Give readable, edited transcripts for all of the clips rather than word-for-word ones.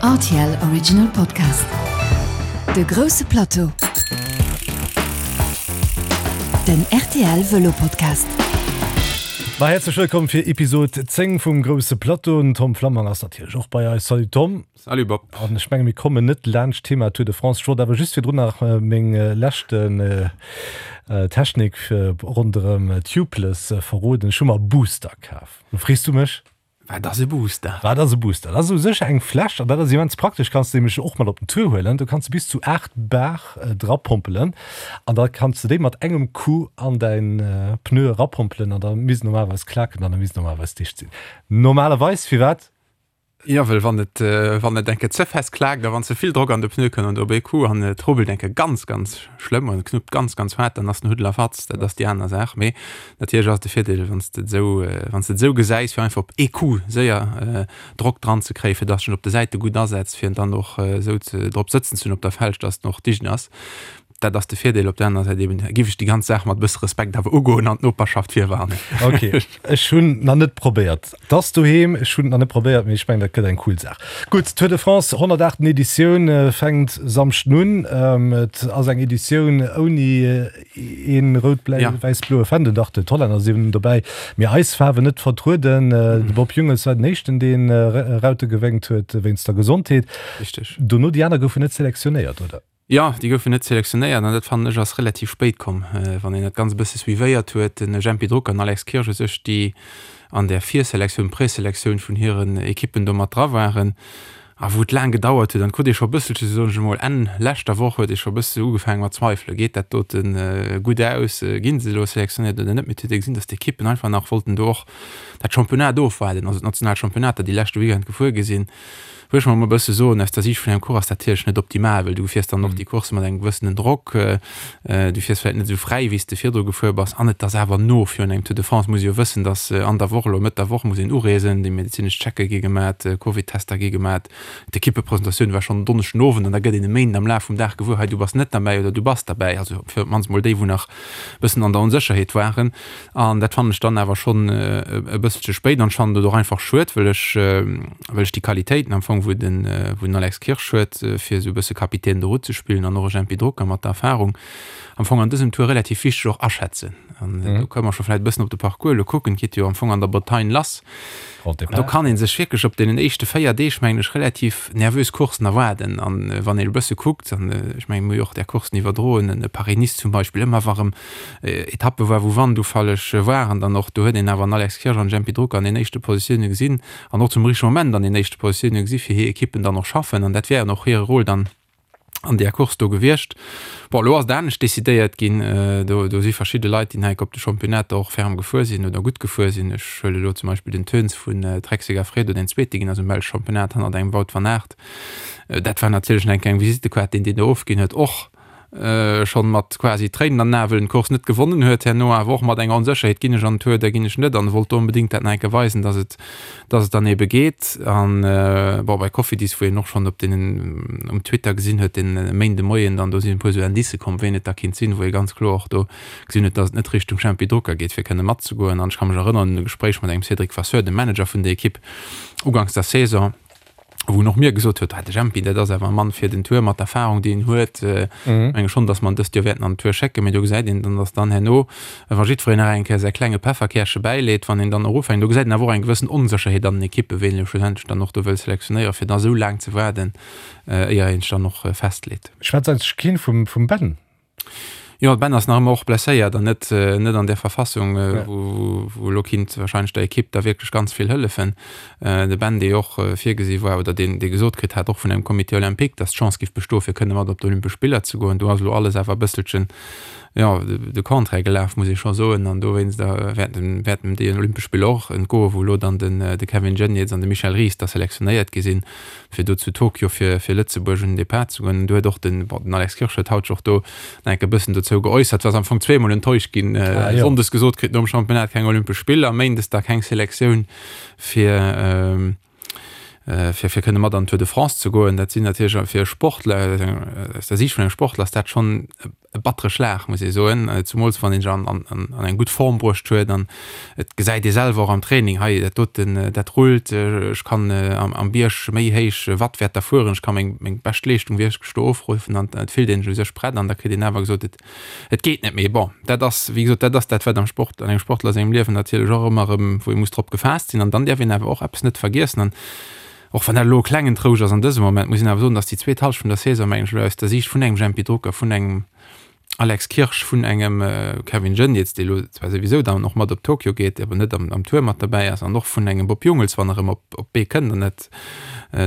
Rtl Original Podcast. De grousse Plateau. Den rtl Vëlo Podcast. Ma häerzlech wëllkomm fir Episod 10 vum grousse Plateau. Den Tom Flammang ass natierlech och bei eis. Salut Tom. Salut Bob. An ech menge mir kommen net laanscht d'Thema Tour de France. Ech wollt awer just virdrun nach meng leschten Technik ronderëm Tubeless verroden. Ech hu mer e Booster kaf. Lo frees du mech? Wat ass e Booster? Wat ass e Booster? Dat ass u sech eng Fläsch, an dat ass immens praktesch, kanns de nämlech och mat op den Tour huelen. Do kanns de bis zu 8 Bar drapompelen an da kanns de déi mat engem Coup an däin Pneu erapompelen an da misst normalerweis klaken an da misst normalerweis dicht sinn. Normalerweis, firwat? Jo, well wann et, wann et eng Kéier ze fest klaakt a wann ze vill Drock an de Pneu kënnt an op ee Coup an et rubbelt eng Kéier ganz, ganz schlëmm an et knuppt ganz, ganz haart, dann ass den Huddel a Fatz. Dat ass déi aner Saach. Mee natierlech ass et de Virdeel, wann s de et esou, wann s de et esou gesäis, fir einfach op ee Coup séier Drock dran ze kréien, fir dass en op de Säite gutt asetzt, fir en dann och esou ze drop sëtzen ze hunn op der Felg, dass en och dicht ass. Dat ass de Virdeel. Op der anerer Säit eben giff ech déi ganz Saach mat e bësse Respekt awer ugoen an d'Noperschaft virwarnen. Ok, ech hunn nach net probéiert. 't ass doheem, ech hunn et nach net probéiert, mee ech mengen dat gëtt eng cool Saach. Gutt, Tour de France, 108. Editioun fänkt Samschden un. Et ass eng Editioun ouni een rout-bläi-wäiss-bloe Fändel. Dach, d'Hollänner sinn dobäi, mee eis Faarwen net vertrueden. De Bob Jungels war den éischten, dee Raute gewénkt huet wéinst der Gesondheet. Richteg. Dono déi aner goufen net selektionéiert, oder? Jo, déi goufen net selektionéiert an dat fannen ech ass relativ spéit komm, wann een dat Ganzt e bësse suivéiert huet. Den Jempy Drucker an Alex Kirsch u sech, déi an där Virselektioun, Preselektioun vun hiren Ekippen do mat dra waren a wou et laang gedauert huet an et krut ee scho e bësselche, soen ech emol, Enn leschter Woch huet ee scho e bësse ugefaange mat zweifelen, geet dat dote gutt aus, ginn se elo selektionéiert oder net. Mee et huet ee gesinn, datt d'Ekippen einfach nach wollten do och dat Championnat ofwaarden, also d'national Championnater, déi leschte Weekend gefuer gi sinn. Wëll ech mol e bësse soen, aus der Siicht vun engem Coureur ass dat natierlech net optimal, well du fiers dann och déi Course mat engem gewëssenen Drock, du fiers vläicht net esou fräi, wéi s de virdru gefuer bass an et ass awer no virun engem Tour de France muss ee jo wëssen, datt an der Woch, elo Mëtt der Woch muss een ureesen, déi medezinesch Checke gi gemat, Covid-Tester gi gemat, d'Ekippepresentatioun war schonn en Donneschden Owend an da gëtt een e Méinden am Laf vum Dag gewuer, hei du bass net derbäi oder du bass derbäi, also fir op d'mannst mol déi wou nach e bëssen an der Onsécherheet waren. An dat fannen ech dann awer schonn e bësselche spéit an ech fannen et och einfach schued, well ech, well ech déi Qualitéiten am Fong, wou den, wou den Alex Kirsch huet, fir esou e bësse Capitaine de route ze spillen an och e Jempy Drucker mat der Erfahrung, am Fong an dësem Tour relativ wichteg och aschätzen. An do kënne mer scho vläicht e bëssen op de Parcours elo kucken. Et geet jo am Fong an der Bretagne lass. An do kann ee sech wierklech op deenen éischte 4 Deeg, mengen ech, relativ nervös Courssen erwaarden. An wann een e bësse kuckt, an ech mengen, mir hu jo och där Courssen iwwerdroen, en Paris-Nice zum Beispill, ëmmer wa rëm Etappe war, wou Wandufalleg waren, dann och do huet een awer en Alex Kirsch an en Jempy Drucker an den éischte Positioune gesinn an och zum richtege Moment an den éischte Positioune gesi fir hir Ekippen dann och schaffen. An dat wär och hire Rôle dann an där Course do gewiescht. Bon, elo ass et anescht decidéiert ginn. Do, do si verschidde Leit, déi nach op de Championnater och ferm gefuer sinn oder gutt gefuer sinn. Ech huele elo zum Beispill den Teuns vun Trek-Segafredo, deen Zweete ginn ass um Belsch Championnat hannert engem Wout van Aert. Dat war natierlech nach eng kleng Visittekaart, deen deen do ofginn huet, och schonn mat quasi Tréinen an den Ae, wëll en d'Course net gewonnen huet, herno awer och mat enger Onsécherheet, ginn ech an den Tour oder ginn ech net, an wollt do onbedéngt dat nach eng Kéier weisen, dass et, dass et dann ebe geet. An bon, bei Cofidis, wou een och schonn op deenen, um Twitter gesinn huet, den Méinde Moien dann, do sinn e puer esou Indicë komm, wien et da kinnt sinn, wou ee ganz kloer och do gesinn huet, dass et net Richtung Jempy Drucker geet, fir kënne matzegoen. An ech ka mech erënneren un e Gespréich mat engem Cédric Vasseur, dem Manager vun der Ekipp, uganks der Saison, wou en och mir gesot huet, ah, de Jempy, dat ass awer e Mann fir den Tour mat der Erfahrung, déi en huet. Mhm. Menge schonn, datt mer en dëst Joer wäerten an den Tour schécken, mee do gesäit een dann, datt dann herno, wa jiddwereen nach eng Kéier säi klenge Pefferkäerche bäileet, wann een dann och ufänkt, do gesäit een awer och eng gewëssen Onsécherheet an den Ekippen, ween elo schlussendlech dann och do wëll selektionéieren, fir da sou laang ze waarden, éier een sech dann och festleet. Schwätzt eigentlech keen vum, vum Ben? Jo, de Ben ass nach ëmmer och blesséiert an net, net an där Verfassung, wou, wou elo kinnt wahrscheinlech der Ekipp da wierklech ganz vill hëllefen. De Ben, dee jo och virgesi war oder deen, dee gesot kritt hat, och vun engem Comité olympique, datt d'Chance giff bestoen, fir kënne mat op d'Olympesch Spiller ze goen. Do ass elo alles awer e bësselchen, jo, de Contraire gelaf, muss ee scho soen. An dowéinst wäerten, wäerten déi Olympesch Spiller och entgoen, wou elo dann den, de Kevin Geniets an de Michel Ries da selektionéiert gi sinn. fir do zu Tokio fir fir Lëtzebuerg un den Depart ze goen. Do huet och den, bon, den Alex Kirsch huet haut sech och do nach enk e bëssen dozou geäussert, war am Fong zweemol enttäuscht ginn, ah, jo. Sonndes gesot kritt nom Championnat keng Olympesch Spiller, Méindes da keng Selektioun fir ähm, äh, fir fir kënne mat an d'Tour de France ze goen. Dat sinn natierlech fir e Sportler, aus der Siicht vun engem Sportler ass dat schonn e. e battere Schlag, muss ee soen, zumools wann een sech an, an, an eng gutt Form bruecht huet an et gesäit ee selwer och am Training, hei dat doten, dat rullt, ech kann am, am Bierg méi héich Wattwäerter fueren, ech ka meng, meng bescht Leeschtung wierklech do ofruffen an et fillt een sech u sech prett an da kritt een awer gesot, et, et geet net méi. Bon, dat ass, wéi gesot, dat ass dat, wat am Sport, an engem Sportler sengem Liewen natierlech och ëmmer erëm, wou ee muss drop gefaasst sinn an dann däerf een awer och eppes net vergiessen an Och wann dat elo e klengen Trouscht ass an dësem Moment, muss een awer soen, datt déi zweet Hallschent vun der Saison, mengen ech elo aus der Siicht vun engem Jempy Drucker, vun engem Alex Kirsch, vun engem Kevin Geniets, dee elo zwar souwisou dann och mat op Tokio geet, awer net am Tour mat derbäi ass, an och vun engem Bob Jungels, wann e rëm op d'Bee kënnt, an dat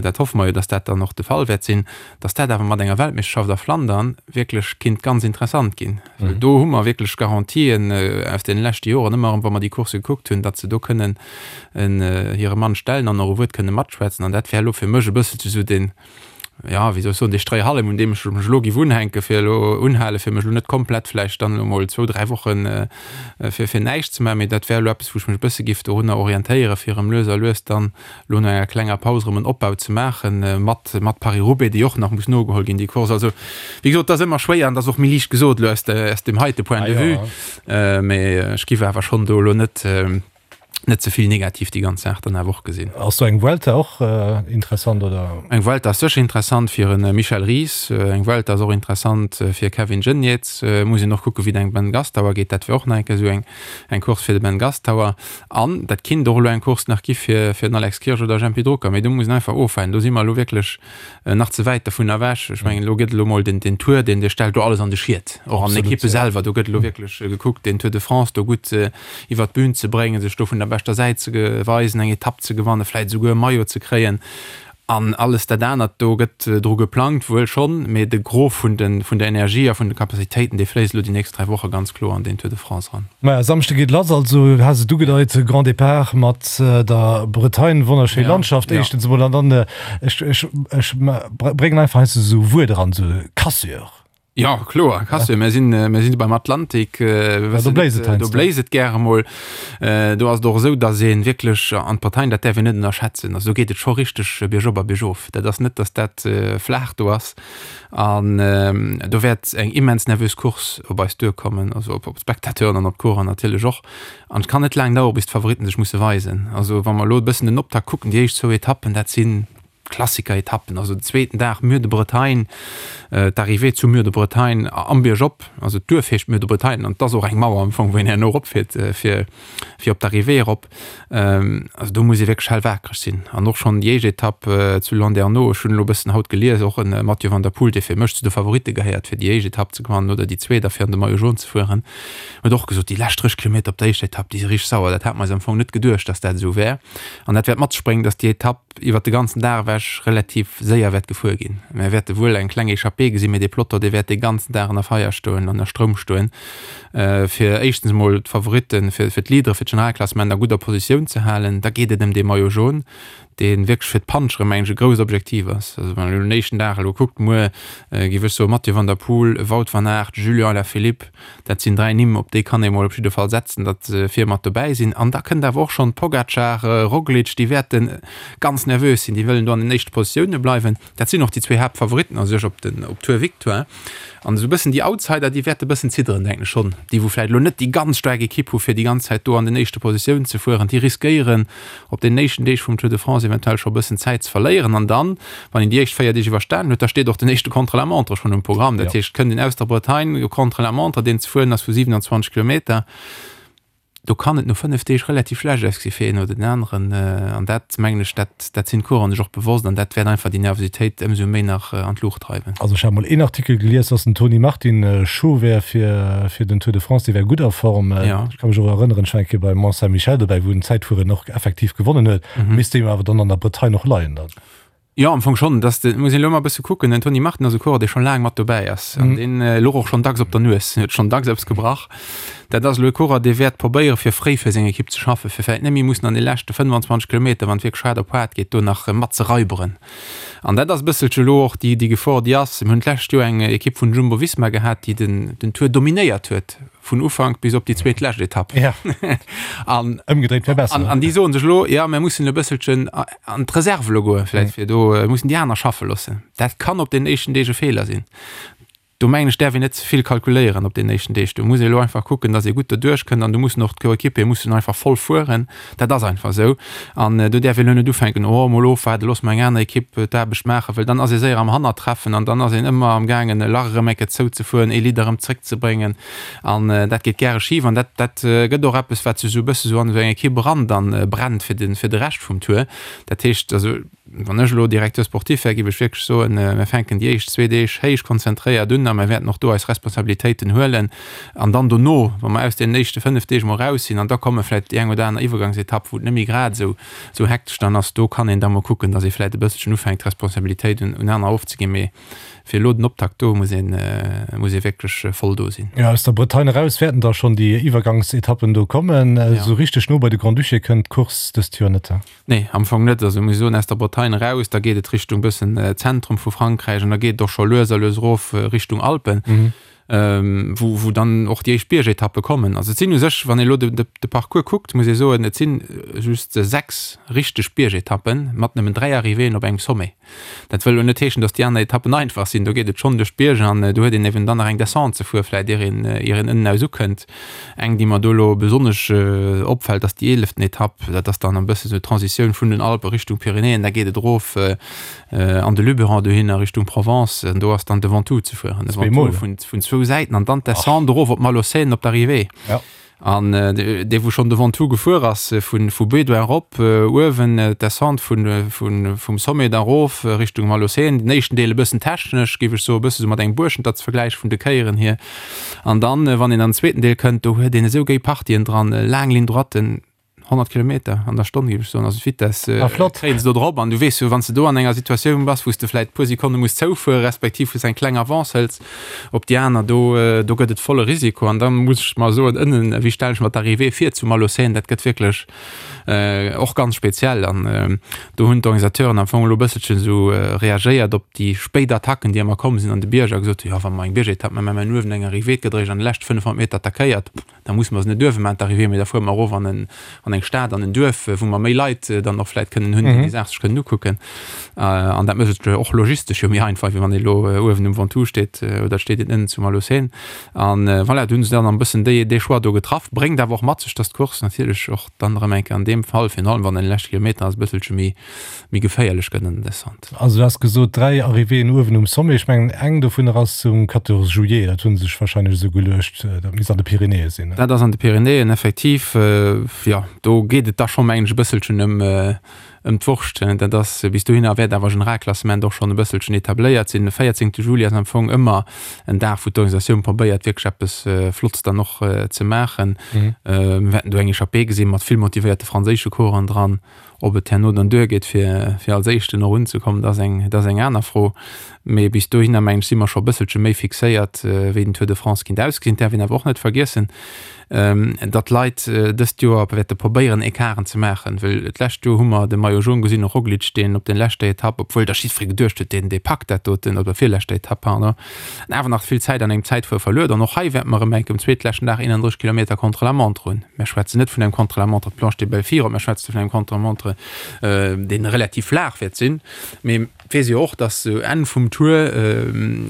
dat hoffe mer jo, datt dat dann och de Fall wäert sinn, datt dat awer mat enger Weltmeeschterschaft a Flandern wierklech kinnt ganz interessant ginn. Well do hu mer wierklech Garantien aus deene leschte Joren, ëmmer erëm, wa mer déi Course gekuckt hunn, datt se do kënnen hire Mann stellen an och e Wuert kënne matschwätzen. An dat wär elo fir mech e bësselche sou deen, jo, wéi soll ech soen, dee Stréihallem, un deem ech mech elo géif unhänken, fir elo unhalen, fir mech elo net komplett vläicht dann elo mol zwou, dräi Woche fir, fir näischt ze maachen. Mee dat wär elo eppes, wou ech mech e bësse géif dorunner orientéieren, fir erëm lues a lues dann elo no enger klenger Paus erëm en Opbau ze maachen, mat, mat Paris-Roubaix, déi och nach muss nogeholl ginn, déi Course. Also, wéi gesot, et ass ëmmer schwéier an et ass och méi liicht gesot elo aus de, aus deem heite Point de vue. Mee ech géif awer schonn do elo net, net ze vill negativ déi ganz Saach dann awer och gesinn. Ass do eng Vuelta och interessant, oder? Eng Vuelta ass sécher interessant fir e Michel Ries. Eng Vuelta ass och interessant fir e Kevin Geniets. Muss een och kucken, wéi et engem Ben Gastauer geet. Dat wär och nach eng Kéier esou eng, eng Course fir de Ben Gastauer. An dat kinnt och elo eng Course nach gi fir, fir den Alex Kirsch oder Jempy Drucker. Mee do muss een einfach ofwaarden. Do si mer elo wierklech nach ze wäit dovun ewech. Ech mengen, elo gëtt elo mol den, den Tour, deen, dee stellt do alles an de Schiet, och an den Ekippe selwer. Do gëtt elo wierklech gekuckt, den Tour de France do gutt iwwert d'Bün ze bréngen, sech do vun der beschter Säit ze weisen, eng Etapp ze gewannen, vläicht esouguer e Maillot ze kréien. An alles dat anert, do gëtt dru geplangt, wuel schonn, mee de Gros vun de, vun der Energie a vun de Capacitéiten, dee fléisst elo déi nächst 3 Woche ganz kloer an den Tour de France eran. Maja, Samschde geet lass, also du has et ugedeit, Grand Départ mat der Bretagne, wonnerschéi Landschaft éischtens emol, an dann, ech, ech, ech bréngen einfach heiansdo esou Wuert eran, esou Cassure. Jo, kloer, Cassure, mir sinn, mir sinn beim Atlantik, ja, do bléist et heiansdo. Do bléist et gäre mol. Do ass et och esou, datt ee wierklech an d'Bretagne, dat däerf een net ënnerschätzen, also do geet et scho richteg biergop a biergof. Dat ass net, datt dat flaach do ass. An do wäert eng immens nervös Course op eis duerkommen, also op d'Spectateuren an op d'Coureur natierlech och. An et kann net laang dauere bis d'Favoritten sech musse weisen. Also wa mer elo e bëssen den Optakt kucken, déi éischt zwou Etappen, dat si Klassiker-Etappen, also den zweeten Dag Mur-de-Bretagne, d'Arrivée zu Mur-de-Bretagne am Biergop, also d'Duerf heescht Mur-de-Bretagne an et ass och eng Mauer am Fong, wou een herno eropfiert fir fir op d'Arrivée erop. Also do muss ee wierklech hellwaakreg sinn. An och schonn déi éischt Etapp zu Landerneau, ech hunn elo e bëssen haut gelies, och en Mathieu van der Poel, dee fir mech zu de Favoritte gehéiert fir déi éischt Etapp ze gewannen oder déi zweet a fir an de Maillot jaune ze fueren, huet och gesot, déi lescht 30 Kilometer op der éischter Etapp, déi si richteg sauer. Dat hat mer eis am Fong net geduecht, datt dat esou wär. An dat wäert mat sech bréngen, datt déi Etapp iwwert de ganzen Dag ewech relativ séier wäert gefuer ginn. Mir wäerte wuel eng kleng Echappée gesinn, mee dee Peloton, dee wäert dee ganzen Dag ënner Feier stoen, ënner Stroum stoen, fir éischtens emol d'Favoritten, fir d'Leadere fir d'Generalklassement a gudder Positioun ze halen. Da geet et ëm dee Maillot jaune, dee wierklech fir d'Puncheren, mengen ech, e grousst Objektiv ass. Also wann een elo den éischten Dag elo kuckt, muer géif ech soen, Mathieu van der Poel, Wout van Aert, Julian Alaphilippe, Dat sinn 3 Nimm, op déi kann ee mol op jidde Fall setzen, datt se vir mat dobäi sinn. An da kënnt awer och schonn Pogacar, Roglic, déi wäerte ganz nervös sinn, déi wëllen do an den éischte Positioune bleiwen. Dat sinn och déi zwee Haaptfavoritten a sech op den op Tour Victoire. An esou e bëssen déi Outsider, déi wäerte bëssen zidderen, denken ech schonn. Déi wou vläicht elo net déi ganz staark Ekipp hu fir déi ganz Zäit do an den éischte Positiounen ze fueren, déi riskéieren op deenen éischten Deeg vum Tour de France eventuell scho e bëssen Zäit ze verléieren. An dann, wann een déi éischt 4 Deeg iwwerstanen huet, da steet och den éischte Contre-la-montre schonn um Programm. Dat heescht, et kënnt een aus der Bretagne, e Contre-la-montre, deen ze fueren ass vu 27 Kilometer. Do kann et no 5 Deeg relativ schlecht ausgesi fir een oder den aneren. An dat, mengen ech, dat, dat sinn d'Coureuren sech och bewosst an dat wäert einfach déi Nervositéit ëmsou méi nach an d'Luucht dreiwen. Also ech hat mol een Artikel gelies, dass den Tony Martin chaud wär fir, fir den Tour de France, dee wär gutt a Form. Ech ka mech och erënneren, ech war eng Kéier beim Mont Saint-Michel dobäi, wou en d'Zäitfueren och effektiv gewonnen huet. Misst deem awer dann an der Bretagne och leien dann. Jo, am Fong schonn. Dass de, muss een elo emol e bësse kucken, den Tony Martin ass e Coureur, dee scho laang mat dobäi ass an deen louch och schonn dacks op der Nues, huet schonn dacks eppes gebrach. Dat ass elo e Coureur, dee wäert probéiere fir fréi fir seng Ekipp ze schaffen, fir vläicht net méi mussen an de leschte 25 Kilometer, wann et wierklech haart op haart geet, do nach mat ze raiberen. An dat ass e bësselche elo och déi, déi Gefor, déi ass. Mir hunn d'lescht Joer eng Ekipp vun Jumbo-Visma gehat, déi den, den Tour dominéiert huet. vun Ufank bis op déi zweet lescht Etapp. Ja. An, Ëmgedréit wär besser. An, an déi soen sech elo, ja, mir mussen e bësselchen an d'Reserve elo goen, vläicht, fir do mussen déi aner schaffe loossen. Dat kann op den éischten Deeg e Feeler sinn. Do mengen ech däerf een net ze vill kalkuléieren op deenen éischten Deeg. Do muss ee elo einfach kucken, datt ee gutt doduerch kënnt an do mussen och d'Coéquipiere mussen einfach voll fueren. Dat ass einfach esou. An do däerf een elo net ufänken, oh mol ofwaarden, loosse mer eng aner Ekipp d'Aarbecht maachen, well dann ass ee séier am Hannertreffen an dann ass een ëmmer am gaangen e Lach erëm eng Kéier zouzefueren, ee Leader erëm zréckzebréngen an dat geet gäre schif an dat dat gëtt och eppes wat sech esou e bësse sou an esou eng Ekipp eran dann brennt fir de fir de Rescht vum Tour. Dat heescht also, Wann ech elo Directeur sportif wär, géif ech wierklech soen, mir fänken déi éischt zwee Deeg héich konzentréiert un a mir wäerten och do eis Responsabilitéiten huelen. An dann dono, wa mer aus deenen éischte 5 Deeg mol raus sinn, an da komme vläicht déi eng oder aner Iwwergangsetapp, wou et net méi grad esou esou hektesch dann ass, do kann een da mol kucken, datt ee vläicht e bësselchen ufänkt, d'Responsabilitéit un aner ofzeginn. Mee fir elo den Optakt do muss een, muss ee wierklech voll do sinn. Jo, aus der Bretagne eraus wäerten da schonn déi Iwwergangsetappen do kommen. Esou richteg no bei de Grand-Duché kënnt d'Course dëst Joer net. Nee, am Fong net. Also muss ech soen, aus der Bretagne eraus, da geet et Richtung bëssen Zentrum vu Frankräich an da geet et och scho lues a lues erof Richtung Alpen, wou, wou dann och déi éischt Biergetappe kommen. Also et sinn u sech, wann ee elo de, de, de Parcours kuckt, muss ee soen, et sinn just 6 richteg Biergetappen mat nëmmen 3 Arrivéeën op engem Sommet. Dat wëll elo net heeschen, datt déi aner Etappen einfach sinn. Do geet et schonn duerch d'Bierger an do huet een eben dann nach eng Descente ze fuere vläicht, ier een, ier een ënnen aus ukënnt. Eng, déi mer do elo besonnesch opfält, ass déi eeleften Etapp. Dat ass dann e bësse sou d'Transitioun vun den Alpe Richtung Pyrenäen. Da geet et erof an de Luberon dohinner Richtung Provence an do ass dann de Ventoux ze fueren. De Ventoux vun, vun zwou Säiten an dann d'Descente erof op Malaucène op d'Arrivée. An dee wou schonn de Ventoux gefuer ass, vu Bédoin erop, uewen d'Descente vum Sommet da erof Richtung Malaucène, den éischten Deel e bëssen technesch, géif ech soen, e bësse sou mat engem Buerschenter ze vergläiche vun de Kéieren hier. An dann, wann een an den zweeten Deel kënnt, do huet een esou géi Partien dran, laang Ligne droiten, 100 Kilometer an der Stonn, géif ech soen, also d'Vitesse kréien se do drop. An du weess jo, wann s de do an enger Situatioun bass, wou s de vläit e puer Sekonne muss zoufuere respektiv wou s eng kleng Avance hëls op déi aner, do, do gëtt et volle Risiko. An da muss ech mer soen, ënnen, wéi stellen ech mer d'Arrivée vir zu Malaucène, dat gëtt wierklech och ganz speziell. An do hunn d'Organisateuren am Fong elo e bësselchen esou reagéiert op déi spéit Attacken, déi ëmmer komm sinn an de Bierger, a gesot hunn, jo wa mer eng Biergetapp maachen, mä mer hunn uewen eng Arrivée, et gëtt eréischt an de leschte 500 Meter attackéiert. Da musse mer se net uewe maachen, d'Arrivée, mee da fuere mer erof an en, an eng Stad, an en Duerf, wou mer méi Leit dann och vläicht kënnen hunn, déi déi Saach sech kënnen ukucken. An dat mécht et och logistesch jo méi einfach, wéi wann ee elo uewen um Ventoux steet oder et steet een ënnen zu Malaucène. An voilà, do hu se dann e bëssen déi, dee Choix do getraff. Bréngt awer och mat sech, dass d'Course natierlech och dann erëm eng Kéier an deem Fall, virun allem wann en de leschte Kilometer ass, e bësselche méi, méi geféierlech gëtt an der Descente. Also du has gesot 3 Arrivéeën uewen um Sommet. Ech mengen eng dovunner ass um 14 juillet, dat hu se sech wahrscheinlech esou geluecht, dat misst an de Pyrenäe sinn. Dat ass an de Pyrenäen effektiv, jo. Do geet et da scho mengen ech e bësselchen ëm ëm d'Wurscht. Dat ass bis dohinner wäert awer Generalklassement och schonn e bësselchen etabléiert sinn. De 14 Juli ass am Fong ëmmer en Dag wou d'Organisatioun probéiert wierklech eppes Flottes dann och ze maachen. Mir wäerten do eng Echappée gesinn mat vill motivéierte franséische Coureuren dran. Ob et herno dann duergeet, fir, fir als Éischten och unzekommen, dat ass eng, dat ass eng aner Fro. Mee bis dohinner, mengen ech, si mer scho e bësselche méi fixéiert, wéi den Tour de France kinnt ausgesinn. Et däerf een awer och net vergiessen, datt d'Leit dëst Joer wäerte probéieren, Ecarten ze maachen. Well d'lescht Joer hu mer de Maillot jaune gesinn, och Roglic, deen op der leschter Etapp, obwuel da jiddweree geduecht huet, deen, dee packt dat doten, op der virleschter Etapp, pardon, awer nach vill Zäit an engem Zäitfuer verluer. An och hei wäerte mer erëm enk um zweetleschten Dag 31 Kilometer Contre-la-montre hunn. Mer schwätzen net vun engem Contre-la-montre Planche des Belles Filles, mer schwätzen vun engem Contre-la-montre, dee relativ flaach wäert sinn. Mee et weess ee jo och, dass sou Enn vum Tour,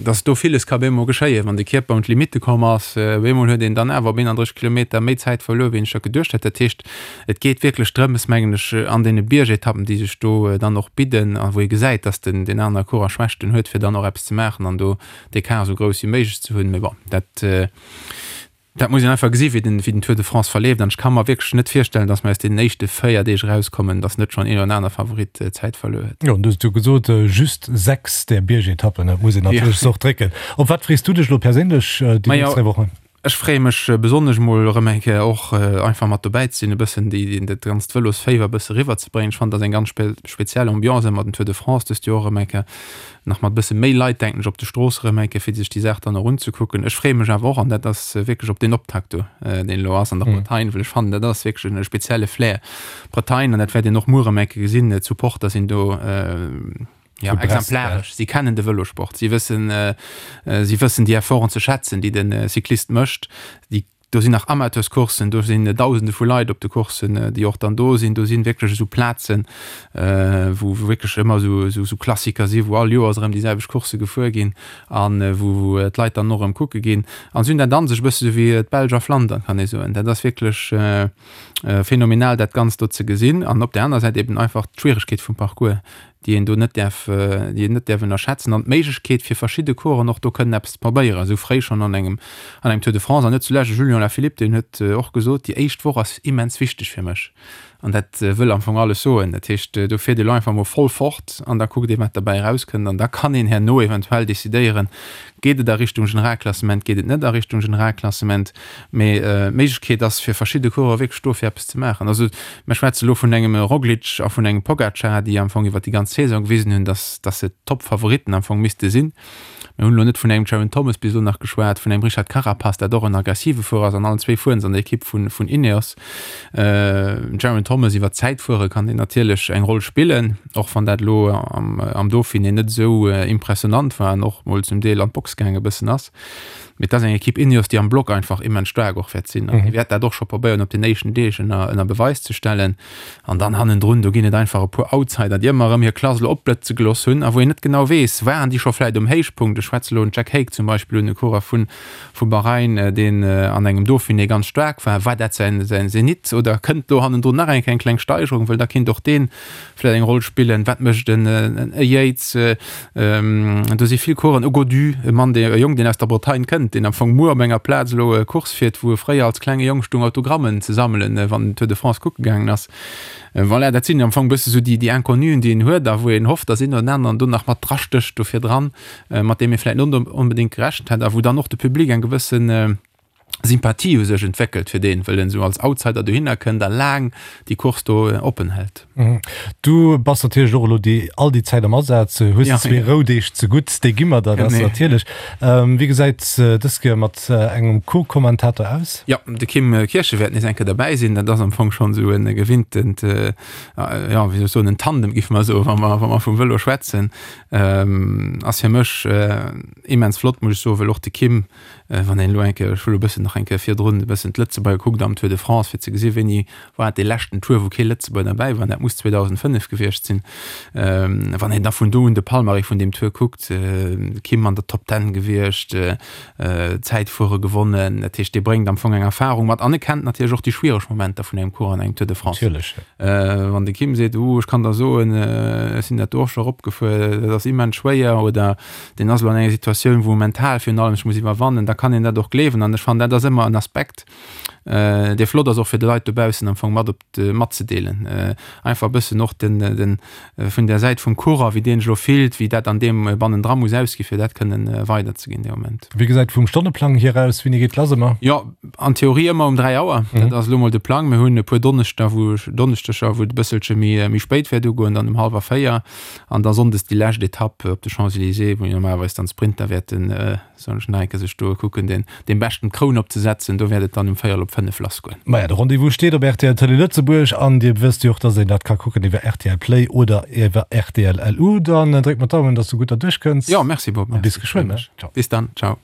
dass do villes ka bemol geschéien, wann de Kierper un d'Limitte komm ass. Bemol huet een dann awer op 31 Kilometer méi Zäit verluer, wéi een sech dat geduecht hätt. Dat heescht, et geet wierklech drëms, mengen ech, an deene Biergetappen, déi sech do dann och bidden a wou ee gesäit, dass den deen anere Coureur Schwächten huet, fir dann och eppes ze maachen an do d'Ecart esou grouss wéi méiglech ze hunn. Mee bon, dat. Dat muss een einfach gesi wéi den, wéi den Tour de France verleeft. An ech ka mer wierklech net virstellen, datt mer aus deenen éischte 4 Deeg erauskommen, datt net schonn een oder aner Favorit Zäit verluer huet. Jo, an du hues et jo gesot, just 6 där Biergetappen, dat muss een natierlech och drécken. Op wat frees du dech elo perséinlech déi nächst 3 Wochen? Ech freeë mech besonnesch mol erëm eng Kéier och einfach mat dobäi ze sinn, e bëssen déi, dat ganzt Vëlosféiwer e bësse riwwerzebréngen. Ech fannen, dat ass eng ganz speziell Ambiance ëmmer den Tour de France dëst Joer erëm eng Kéier. nach mat bësse méi Leit, denken ech, op de Strooss erëm eng Kéier, fir sech déi Saach dann och unzekucken. Ech freeë mech awer och, an dat ass wierklech op deen Optakt do, deen elo ass an der Bretagne, well ech fannen, dat ass wierklech e spezielle Flair, Bretagne, an dat wäert een och muer erëm eng Kéier gesinn, d'Supporter sinn do, jo, exemplaresch. Si kennen de Vëlosport, si wëssen, si wëssen déi Efforten ze schätzen, déi de Cyclist mécht. Déi. Do sinn nach Amateurscourssen, do sinn Dausende vu Leit op de Courssen, déi och dann do sinn. Do sinn wierklech esou Plazen, wou wierklech ëmmer esou Klassiker sinn, wou all Joers erëm déi selwecht Coursse gefuer ginn a wou d'Leit dann och erëm kucke ginn. An si hunn dat an sech, e bësse sou wéi d'Belsch a Flandern, kann ee soen. Dat ass wierklech phänomenal, dat Ganzt do ze gesinn. An op där aner Säit eben einfach d'Schwieregkeet vum Parcours, déi een do net däerf, déi een net däerf ënnerschätzen, an d'Méiglechkeet fir verschidde Coureuren och do kënnen eppes ze probéieren, esou fréi schonn an engem, an engem Tour de France. An net zulescht de Julian Alaphilippe, deen huet och gesot, déi éischt Woch ass immens wichteg fir mech. An dat wëll am Fong alles soen. Dat heescht, do fiert ee lo einfach mol voll fort an da kuckt ee wat derbäi erauskënnt an da kann een herno eventuell decidéieren, geet et a Richtung Generalklassement, geet et net a Richtung Generalklassement. Mee d'Méiglechkeet ass fir verschidde Coureuren wierklech do fir eppes ze maachen. Also mir schwätze lo vun engem Roglic a vun engem Pogacar, déi am Fong iwwer déi ganz Saison gewisen hunn, datt datt se d'Toppfavoritten am Fong misste sinn. Mir hunn elo net vun engem Geraint Thomas bis elo nach geschwat, vun engem Richard Carapaz, dat och en aggressive Fuerer ass an allen zwee fueren se an der Ekipp vun vun Ineos. Geraint Thomas iwwer d'Zäitfuere kann deen natierlech eng Roll spillen, och wann dat elo am am Dauphiné net esou impressionant war an och mol zum Deel an d'Box gaange bëssen ass. Mee et ass eng Ekipp Ineos, déi am Block einfach immens staark och wäert sinn. An déi wäert dat och scho probéieren op den éischten Deeg ënner, ënner Beweis ze stellen. An dann hannendrun, do ginn et einfach e puer Outsider, déi ëmmer erëm hir Klass elo opblëtze gelooss hunn a wou een net genau weess, waren déi scho vläicht um Héichpunkt. Ech schwätze elo den Jack Haig zum Beispill un, e Coureur vu vu Bahrain, deen an engem Dauphiné ganz staark war. War dat säin, säin Zenit oder kënnt do hannendrun nach eng Kéier eng kleng Steigerung? Well da kinnt och deen vläicht eng Roll spillen. Wat mécht en e Yates? Do si vill Coursen. E Gaudu, e Mann, dee, e Jong, deen aus der Bretagne kënnt, deen am Fong muer op enger Plaz elo Course fiert, wou e fréier als klenge Jong stung Autogrammen ze sammelen, wann en Tour de France kucke gaangen ass. Voilà, dat sinn am Fong e bësse sou déi, déi Inconnuen, déi een huet a wou een hofft, datt een oder den aneren do nach mat drastécht do virdran, mat deem ee vläicht net onbedéngt gerechent hätt a wou dann och de Public eng gewëssen, Sympathie u sech entwéckelt fir deen, wëll en esou als Outsider dohinner kënnt a laang déi Course do oppen hält. Du bass natierlech och elo déi all déi Zäit am Asaz, hues zwee Roudeeg ze gutt, déi gi mer der, dat ass natierlech. Wéi gesäit dës Kéier mat engem Co-Kommentator aus? Jo, de Kim Kirchen wäert nees eng Kéier derbäi sinn. Dat ass am Fong schonn esou e gewinntent, jo, wéi soll ech soen, en Tandem, géife mer soen, wa mer, wa mer vum Vëlo schwätzen. Ass fir mech immens flott, muss ech soen, well och de Kim, Wann een elo eng Kéier, ech hu elo e bëssen nach eng Kéier virdrun e bëssen d'Lëtzebuerger gekuckt am Tour de France, fir ze gesi wéini war et dee leschten Tour, wou kee Lëtzebuerger derbäi war, dat muss 2005 gewiescht sinn. Wann een da vun do un de Palmarès vun deem Tour kuckt, Kim an der Top Ten gewiescht, Zäitfuere gewonnen, dat heescht dee bréngt am Fong eng Erfarung mat an e kennt natierlech och déi schwiereg Momenter vun engem Cours an engem Tour de France. Natierlech. Wann de Kim seet, uh ech kann der soen, ech sinn dat do och scho eropgefuer, dat ass immens schwéier oder deen ass elo an enger Situatioun, wou e mental virun allem sech muss iwwerwannen, da kann een dat och gleewen. An ech fannen, dat ass ëmmer en Aspekt, dee flott ass och fir de Leit dobaussen am Fong mat op de, matzedeelen. Einfach e bëssen och den, den, vun der Säit vum Coureur, wéi deen sech elo fillt, wéi dat an deem bannendra muss ausgi fir dat kënnen weiderzeginn dee Moment. Wéi gesäit vum Stonneplang hier aus? Wéini geet lass ëmmer? Jo, an Theorie ëmmer um 3 Auer. Dat ass elo mol de Plang. Mir hunn e puer Donneschder, wou, Donneschdeger, wou et e bësselche méi, méi spéit wäert ugoen, dann um hallwer 4. An da sonndes déi lescht Etapp op de Champs-Élysées, wou normalerweis dann d'Sprinter wäerten, soen ech nach eng Kéier, sech do kucken, den, deem Beschten d'Kroun opzesetzen. Do wäert et dann um véierel op 5 lassgoen. Maja, de Rendez-vous steet op rtl Télé Lëtzebuerg an Dir wësst jo och, dass een dat ka kucken iwwer rtl Play oder iwwer rtl LU. Dann dréck mer d'Daumen, dass du gutt derduerch kënns. Jo, merci Bob, A bis geschwënn, ne? Ciao. Bis dann, ciao.